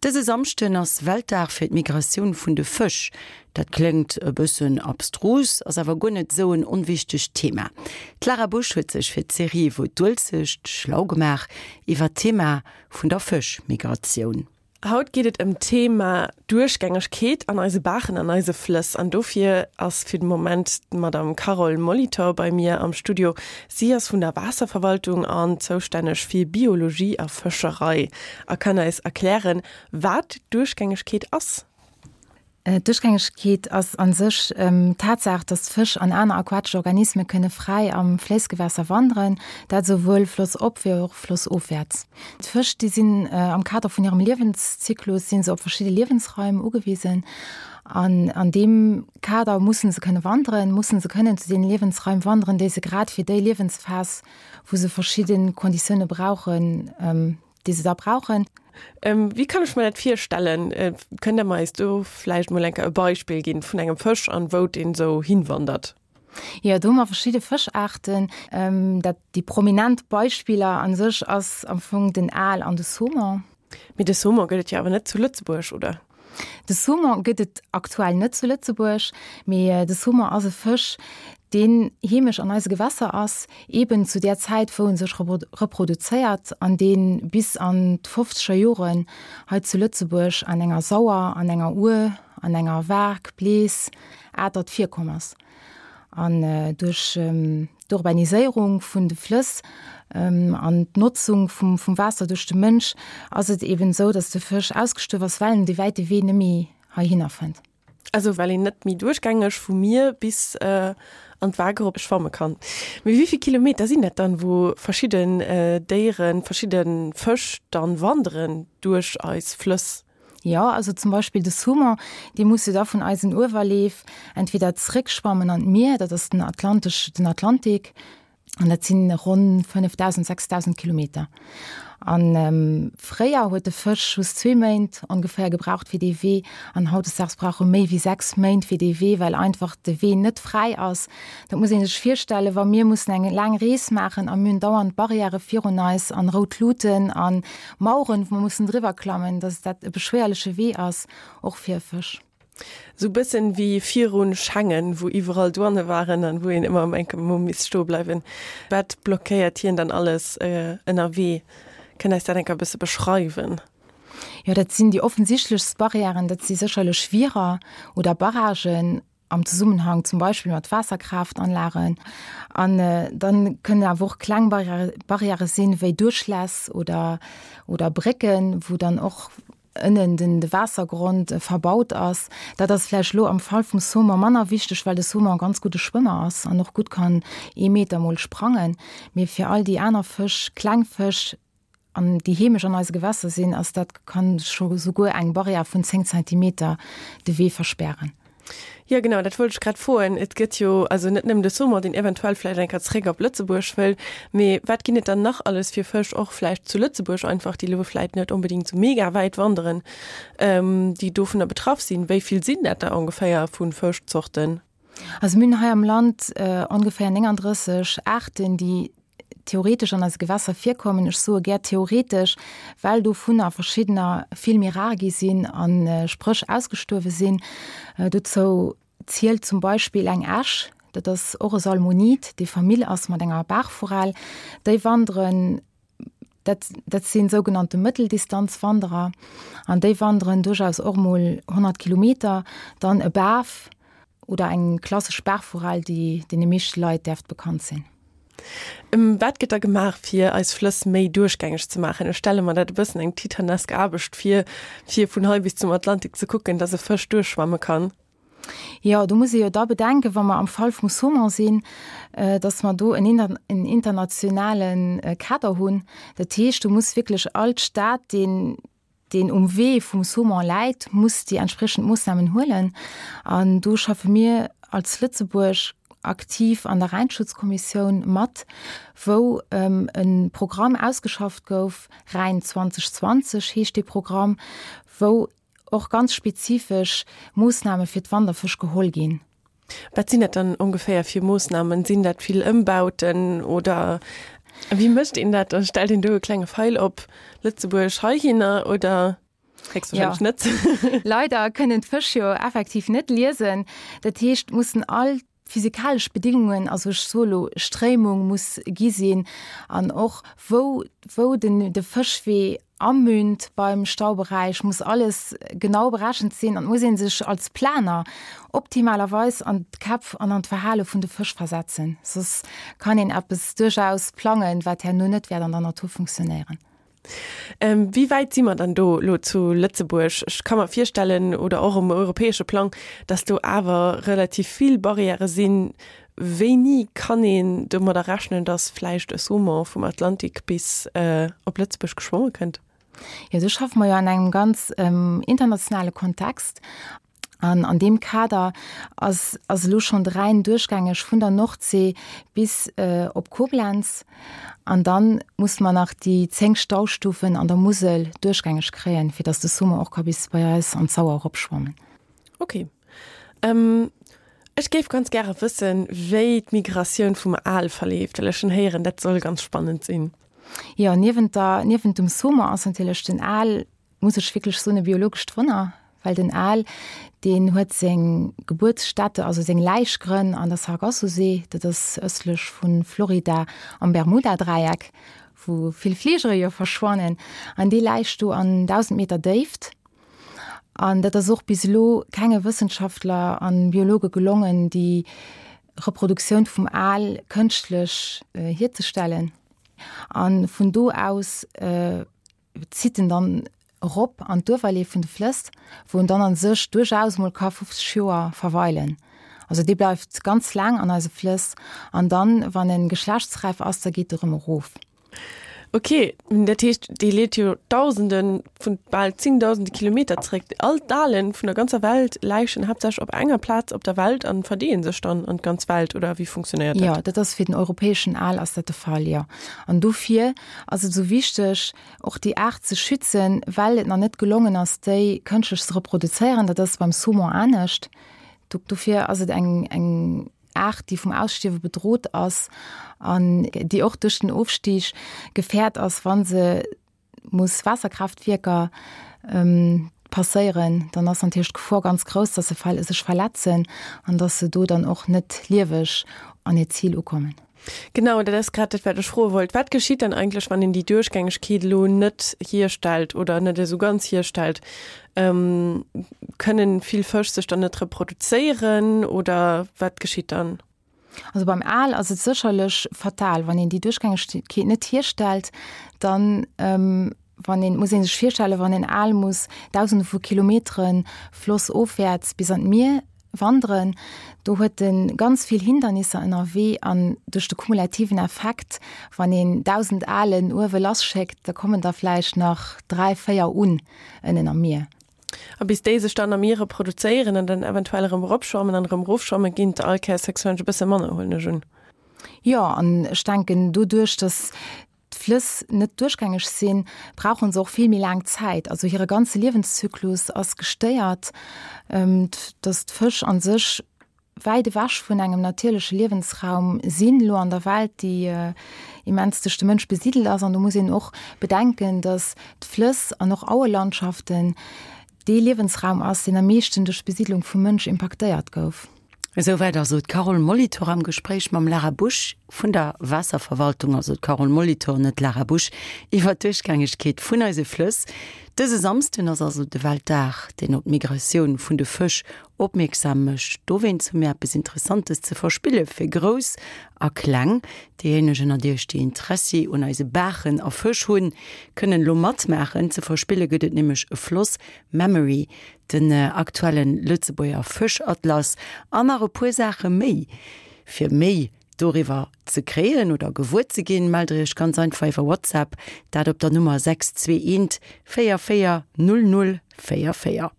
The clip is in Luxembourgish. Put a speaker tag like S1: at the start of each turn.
S1: Dëse Samschden ass Weltdag fir d'Migratioun vun de Fësch. Dat kléngt e bëssen abstrus, ass awer guer net esou en onwichtegt Thema. D'Lara Busch huet sech fir d'Serie Wou d'Uelzecht schlau gemaach iwwer d'Thema vun der Fëschmigratioun.
S2: Haut geet et ëm d'Thema Duerchgängegkeet an eise Baachen an eise Flëss. An dofir ass fir de Moment d'Madame Carole Molitor bei mir am Studio. Si ass vun der Waasserverwaltung an zoustänneg fir Biologie a Fëscherei a kann eis erklären, wat Duerchgängegkeet ass.
S3: D'Duerchgängegkeet ass a sech d'Tatsaach, datt Fësch an aner aquatesch Organisme kënne fräi am Fléissgewässer wanderen, dat esouwuel flossop wéi och flossofwäerts. D'Fësch, déi sinn am Kader vun hirem Liewenszyklus si se op verschidde Liewensraim ugewisen an an deem Kader musse se kënne wanderen, musse se kënnen zu deene Liewensraim wanderen, déi se grad fir déi Liewensphas, wou se verschidde Konditioune brauchen, déi se da brauchen.
S2: Wéi kann ech mer dat virstellen? Kënnt Der mer eis do vläicht mol eng Kéier e Beispill ginn vun engem Fësch an wou deen esou hinwandert?
S3: Jo, do hu mer verschidde Fëschaarten. Dat, déi prominent Beispiller a sech ass am Fong den Aal an de Saumon.
S2: Mee de Saumon gëtt et jo awer net zu Lëtzebuerg, oder?
S3: De Saumon gëtt et aktuell net zu Lëtzebuerg, mee de Saumon ass e Fësch, deen heemesch an eise Gewässer ass, eben zu där Zäit, wou en sech reproduzéiert an dee bis an d'fofzeger Joren hei zu Lëtzebuerg an enger Sauer, an enger Our, an enger Waark, Blees, Atert virkomm ass. An duerch d'Urbaniséierung vun de Flëss an d'Notzung vum Waasser duerch de Mënsch ass et eben esou, datt de Fësch ausgestuerf ass, well en dee wäite Wee net méi heihinner fënnt.
S2: Also well een net méi duerchgängeg vum Mier bis an d'Waark erop schwamme kann. Mee wéi vill Kilometer sinn dat dann, wou verschidden Déieren, verschidde Fësch dann wanderen duerch eis Flëss?
S3: Jo, also zum Beispill de Saumon, dee muss jo da vun eisen Uewerleef entweder zréckschwammen an d'Mier, dat ass den Atlantesch, den Atlantik, an dat sinn ronn 5.000, 6.000 Kilometer. An fréier huet de Fësch just zwee Méint ongeféier gebraucht fir dee Wee, an hautdesdaags brauch e méi wéi sechs Méint fir dee Wee, well einfach de Wee net fräi ass. Dat muss ee sech virstellen, wa mir mussen eng laang Rees maachen a mir hunn dauernd Barrièrë virun eis an rout Luuten an Maueren, wou mer mussen driwwer klammen, dass dat e beschwéierleche Wee ass, och fir e Fësch.
S2: Sou bëssen wéi virun Schengen, wou iwwerall Douane waren an wou een ëmmer eng Kéier misst stoe bleiwen. Wat blockéiert hien dann alles ënnerwee? Kënnt eis dat eng Kéier e bësse beschreiwen?
S3: Jo, dat sinn déi offensichtlechst Barrièren, dat si sécherlech Wierer oder Barragen, am Zesummenhang zum Beispill mat Waasserkraaftanlagen. An dann kënnen awer och kleng Barrièrë sinn, wéi Duerchläss oder, oder Brécken, wou dann och ënnen den de Waassergrond verbaut ass. Dat ass vläicht elo am Fall vum Saumon manner wichteg, well de Saumon e ganz gudde Schwëmmer ass an och gutt kann ee Meter mol sprangen. Mee fir all déi aner Fësch, kleng Fësch, an déi heemesch an eise Gewässer sinn, ass dat kann scho souguer eng Barrière vun 10 Zentimeter de Wee verspären.
S2: Jo genau, dat wollt ech grad froen. Et gëtt jo also net nëmmen de Saumon, deen eventuell vläicht eng Kéier zréck op Lëtzebuerg wëll, mee wat ginn et dann nach alles fir Fësch, och vläicht zu Lëtzebuerg einfach, déi elo vläicht net onbedéngt esou mega wäit wanderen, déi dovunner betraff sinn? Wéi vill sinn dat der ongeféier vu Fëschzorten?
S3: Also mir hunn hei am Land ongeféier 39 Aarten, déi theoretesch an eise Gewässer virkommen. Ech soe gär theoretesch, well dovunner verschiddener vill méi rar gi sinn a spréch ausgestuerwe sinn. Dozou zielt zum Beispill eng Äsch, dat ass och e Salmonid, dee Famill ass mat enger Baachforell. Déi wanderen, dat, dat si sougenannte Mëtteldistanzwanderer an déi wanderen duerchaus och mol 100 Kilometer. Dann e Baf, Oder eng klassesch Baachforell, déi deene meeschte Leit däerft bekannt sinn.
S2: Wat gëtt da gemaach, fir eis Flëss méi duerchgängeg ze maachen? Ech stelle mer dat e bëssen eng titanesk Aarbecht vir, fir vun hei bis zum Atlantik ze kucken, dass e Fësch duerchschwamme kann.
S3: Jo, do muss ee jo da bedenken, wa mer am Fall vum Saumon sinn, dass mer do en internationale Kader hunn. Dat heescht, do muss wierklech all Staat, deen, deen um Wee vum Saumon läit, muss déi entspriechend Moossnamen huelen. An do schaffe mir als Lëtzebuerg aktiv an der Rhäinschutzkommissioun mat, wou e Programm ausgeschafft gouf, Rhäin 2020 heescht dee Programm, wou och ganz spezifesch Moossname fir d'Wanderfësch geholl ginn.
S2: Wat sinn dat dann ongeféier fir Moossnamen? Sinn dat vill Ëmbauten oder wéi mécht een dat? Stellt een do e klenge Feil op Lëtzebuerg heihinner oder? Héchstwahrscheinlech
S3: Ja.
S2: net.
S3: Leider kënnen d'Fësch jo effektiv net liesen. Dat heescht, mussen all physikalesch Bedingungen, also ech soe lo Stréimung muss gi sinn an och wou wou den de Fëschwee amünt beim Stauberäich, muss alles genau berechent sinn an et muss ee sech als Planer optimalerweis an d'Käpf an an d'Verhale vun de Fësch versetzen, soss kann een eppes duerchaus plangen, wat herno net wäert an der Natur funktionéieren.
S2: Wéi wäit si mer dann do elo zu Lëtzebuerg? Ech ka mer virstellen, oder och um europäesche Plang, datt do awer relativ vill Barrièrë sinn. Wéini kann een domadder rechnen, datt vläicht e Saumon vum Atlantik bis op Lëtzebuerg geschwomme kënnt?
S3: Jo, do schaffe mer jo an engem ganz internationale Kontext. An an deem Kader ass ass elo schonn de Rhäin duerchgängeg vun der Nordsee bis op Koblenz. An dann musse mer nach déi 10 Staustufen an der Musel duerchgängeg kréien, fir datt de Summer och ka bis bei eis an d'Sauer eropschwammen.
S2: Ok. Ech géif ganz gäre wëssen, wéi d'Migratioun vum Aal verleeft, well ech hunn héieren, dat soll ganz spannend sinn.
S3: Jo, niewent der, niewent dem Summer ass natierlech den Aal muss ech wierklech soen, e biologescht Wonner, well den Aal, deen huet seng Gebuertsstätte, also seng Läichgrënn an der Sargassosee, dat ass ëstlech vu Florida am Bermudadräieck, wou vill Fligere jo verschwannen, an dee läicht do an 1.000 Meter Déift. An dat ass och bis elo kenge Wëssenschaftler a Biologe gelongen, déi Reproduktioun vum Aal kënschtlech hierzestellen. A vun do aus zitt en dann erop an d'Uewerleef vun de Flëss, wou en dann a sech duerchaus mol ka 50 Joer verweilen. Also dee bleift ganz laang an eise Flëss an dann, wann e geschlechtsräif ass, da geet e rëm erof.
S2: Ok, dat heescht, dee leet jo Dausende vun, bal zéngdausende Kilometer zeréck. All d'Aale vun der ganzer Welt läichen haaptsächlech op enger Plaz op der Welt an verdeeën sech dann an d'ganz Welt, oder wéi funktionéiert dat?
S3: Jo, dat ass fir den europäeschen Aal ass dat de Fall, jo. An dofir ass et esou wichteg, och déi Aart ze schützen, well et nach net gelongen ass, déi kënschtlech ze reproduzéieren. Dat ass beim Saumon anescht. Dofir ass et eng, eng Aart, déi vum Ausstierwe bedrot ass an déi och duerch den Ofstig gefährt ass, wa se muss Waasserkraaftwierker passéieren. Dann ass natierlech d'Gefor ganz grouss, dass se sech verletzen an dass se do dann och net lieweg an hiert Zil ukommen.
S2: Genau, dat ass grad dat, wat ech froe wollt. Wat geschitt dann eigentlech, wann een déi Duerchgängegkeet elo net hierstellt oder net esou ganz hierstellt? Kënnen vill Fësch sech dann net reproduzéieren oder wat geschitt dann?
S3: Also beim Aal ass et sécherlech fatal, wann een déi Duerchgängegkeet net hierstellt, dann wann een, muss ee sech virstellen, wann en Aal muss Dausende vu Kilometere flossofwäerts bis an d'Mier wanderen, do huet e ganz vill Hindernisser ënnerwee an duerch de kumulativen Effekt, wann een 1.000 Aalen uewe lasschéckt, da kommen der vläicht nach 3, 4 un ënnen am Mier.
S2: A bis déi sech dann am Mier reproduzéieren an dann eventuell erëm eropschwammen an erëm erofschwammen, ginn et all Kéiers héchstwahrscheinlech e bësse manner, huelen ech un.
S3: Jo, an ech denken, doduerch, datt d'Flëss net duerchgängeg sinn, brauche se och vill méi laang Zäit. Also hire ganze Liewenszyklus ass gestéiert, datt d'Fësch a sech wäit ewech vun engem natierleche Liewensraum sinn elo an der Welt, déi immens duerch de Mënsch besidelt ass. An do muss een och bedenken, datt d'Flëss an och Auelandschaften dee Liewensraum ass, deen am meeschten duerch d'Besiidlung vum Mënsch impaktéiert gouf.
S1: Esouwäit also d'Carole Molitor am Gespréich mam Lara Busch vun der Waasserverwaltung, also d'Carole Molitor, net d'Lara Busch, iwwer d'Duerchgängegkeet vun eise Flëss. Dëse Samsden ass also de Weltdag, deen op d'Migratioun vun de Fësch opmierksam mécht. Dowéinst hu mir eppes Interessantes ze verspille fir Grouss a Kleng. Déijéineg ënnert Iech, déi Interessi un eise Baachen a Fësch hunn, kënnen elo matmaachen. Ze verspille gëtt et nämlech e Floss Memory, den aktuellen Lëtzebuerger Fëschatlas an nach e puer Saache méi. Fir méi doriwwer ze kréien oder gewuer ze ginn, mellt der iech ganz einfach iwwer WhatsApp, dat op der Nummer 621 44 00 44.